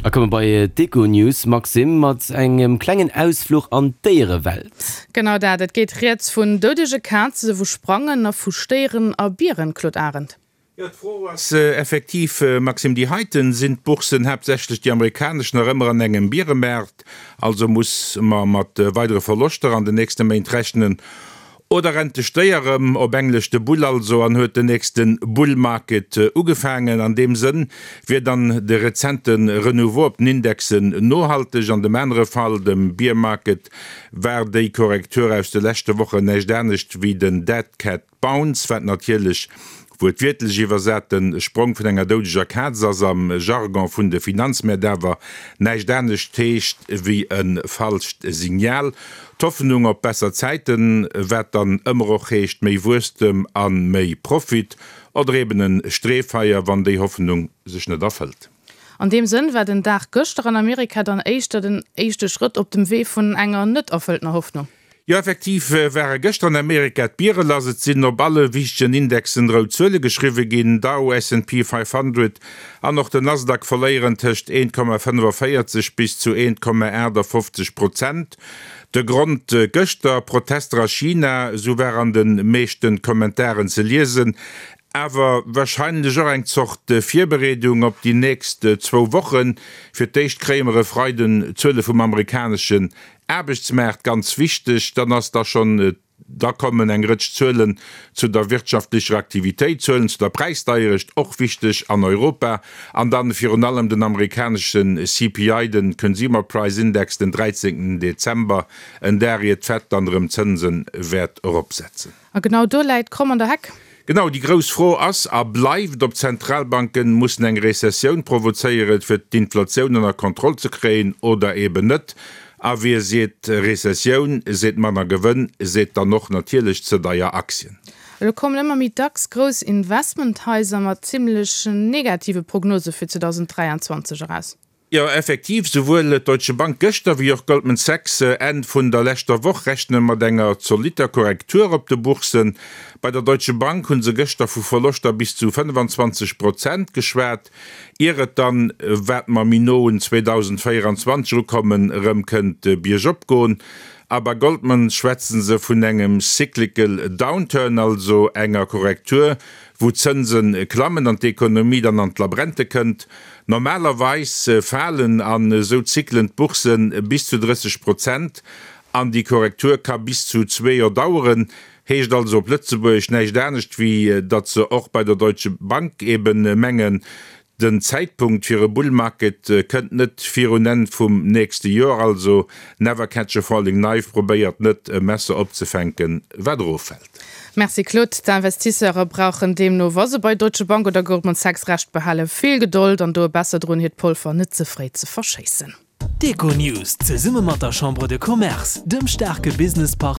A komme bei d'Econews, Maxime, mat engem klengen Ausfluch an d'Déierewelt. Genau dat, et geet rieds vun doudege Kaze, vu Sprangen a vu Stéieren a Bieren, Claude Arend. Jo, d'Fro ass effektiv, Maxime, déi heiten. Sinn d'Boursen, haaptsächlech déi amerikanesch, nach ëmmer an engem Bieremaart? Also muss mer mat weidere Verloschter an den nächste Méint rechnen? Oder rennt de Stéier erëm, op Englesch de Bull also, an huet den nächste Bull Market ugefaangen? An deem Sënn wier dann de rezente Renouveau op den Indexen nohalteg. An dem anere Fall, dem Bear Market, war déi Korrektur aus de leschte Wochen näischt anescht wéi den Dead Cat Bounce, wat natierlech wuertwiertlech iwwersat de Sprong vun enger doudeger Kaz ass, am Jargon vun de Finanzmäert awer näischt anescht heescht wéi e falscht Signal. D'Hoffnung op besser Zäiten, wat dann ëmmer och heescht méi Wuesstem a méi Profit, oder eben e Streefeier, wann déi Hoffnung sech net erfëllt. An deem Sënn war den Dag gëschter an Amerika dann éischter den éischte Schrëtt op dem Wee vun enger net erfëlltener Hoffnung. Jo, effektiv ware gëschter an Amerika d'Biere lass. Et sinn op alle wichtegen Indexen rout Zuele geschriwwe ginn. Dow, S&P 500 an och den Nasdaq verléieren tëscht 1,45 bis zu 1,58 Prozent. De Grond gëschter, Protester a China, esou war an de meeschte Kommentaren ze liesen. Awer warscheinlech och eng Zort Virbereedung op déi nächst zwou Wochen. Fir d'éischt kréie mer e Freiden d'Zuele vum amerikaneschen Aarbechtsmaart, ganz wichteg. Dann ass da schonn, da kommen eng Rëtsch Zuelen zu der wirtschaftlecher Aktivitéit, Zuelen zu der Präisdeierecht, och wichteg an Europa, an dann virun allem den amerikanesche CPI, den Consumer Price Index, den 13 Dezember, en Dag ier d'Fed dann erëm d'Zënse wäert eropsetzen. A genau do läit d'Kromm an der Heck. Genau, déi grouss Fro ass a bleift, ob d'Zentralbanken mussen eng Rezessioun provozéieren, fir d'Inflatioun ënner Kontroll ze kréien, oder eben net. A wie seet Rezessioun, seet manner Gewënn, seet dann och natierlech ze deier Aktien. Elo kommen ëmmer méi dacks grouss Investmenthaiser mat zimmlech negative Prognose fir 2023 eraus. Jo, effektiv, souwuel d'Deutsche Bank gëschter wéi och Goldman Sachs Enn vun der leschter Woch rechne mat enger zolitter Korrektur op de Bourssen. Bei der Deutsche Bank hu se gëschter vu Verloschter bis zu 25 Prozent geschwat, ier et dann, wat mer méi no un 2024 erukommen, erëm kënnt biergop goen. A bei Goldman schwätze se vun engem cyclical downturn, also enger Korrektur, wou d'Zënse klammen an d'Ekonomie dann an d'Labrente kënnt. Normalerweis falen an esou Zyklen d'Bourse bis zu 30 Prozent an déi Korrektur ka bis zu zwee Joer daueren. Heescht also op Lëtzebuergesch näischt anescht wéi datt se och bei der Deutsche Bank eben mengen, den Zäitpunkt fir e Bull Market kënnt net virun Enn vum nächste Joer. Also never catch a falling knife, probéiert net e Messer opzefänken wat eroffält. Merci Claude. D'Investisseure brauchen deemno, wa se bei Deutsche Bank oder Goldman Sachs Recht behalen, vill Gedold an doe besser drun, hiert Polver net ze fréi ze verschéissen. D'Econews zesumme mat der Chambre de Commerce, dem staarke Businesspartner.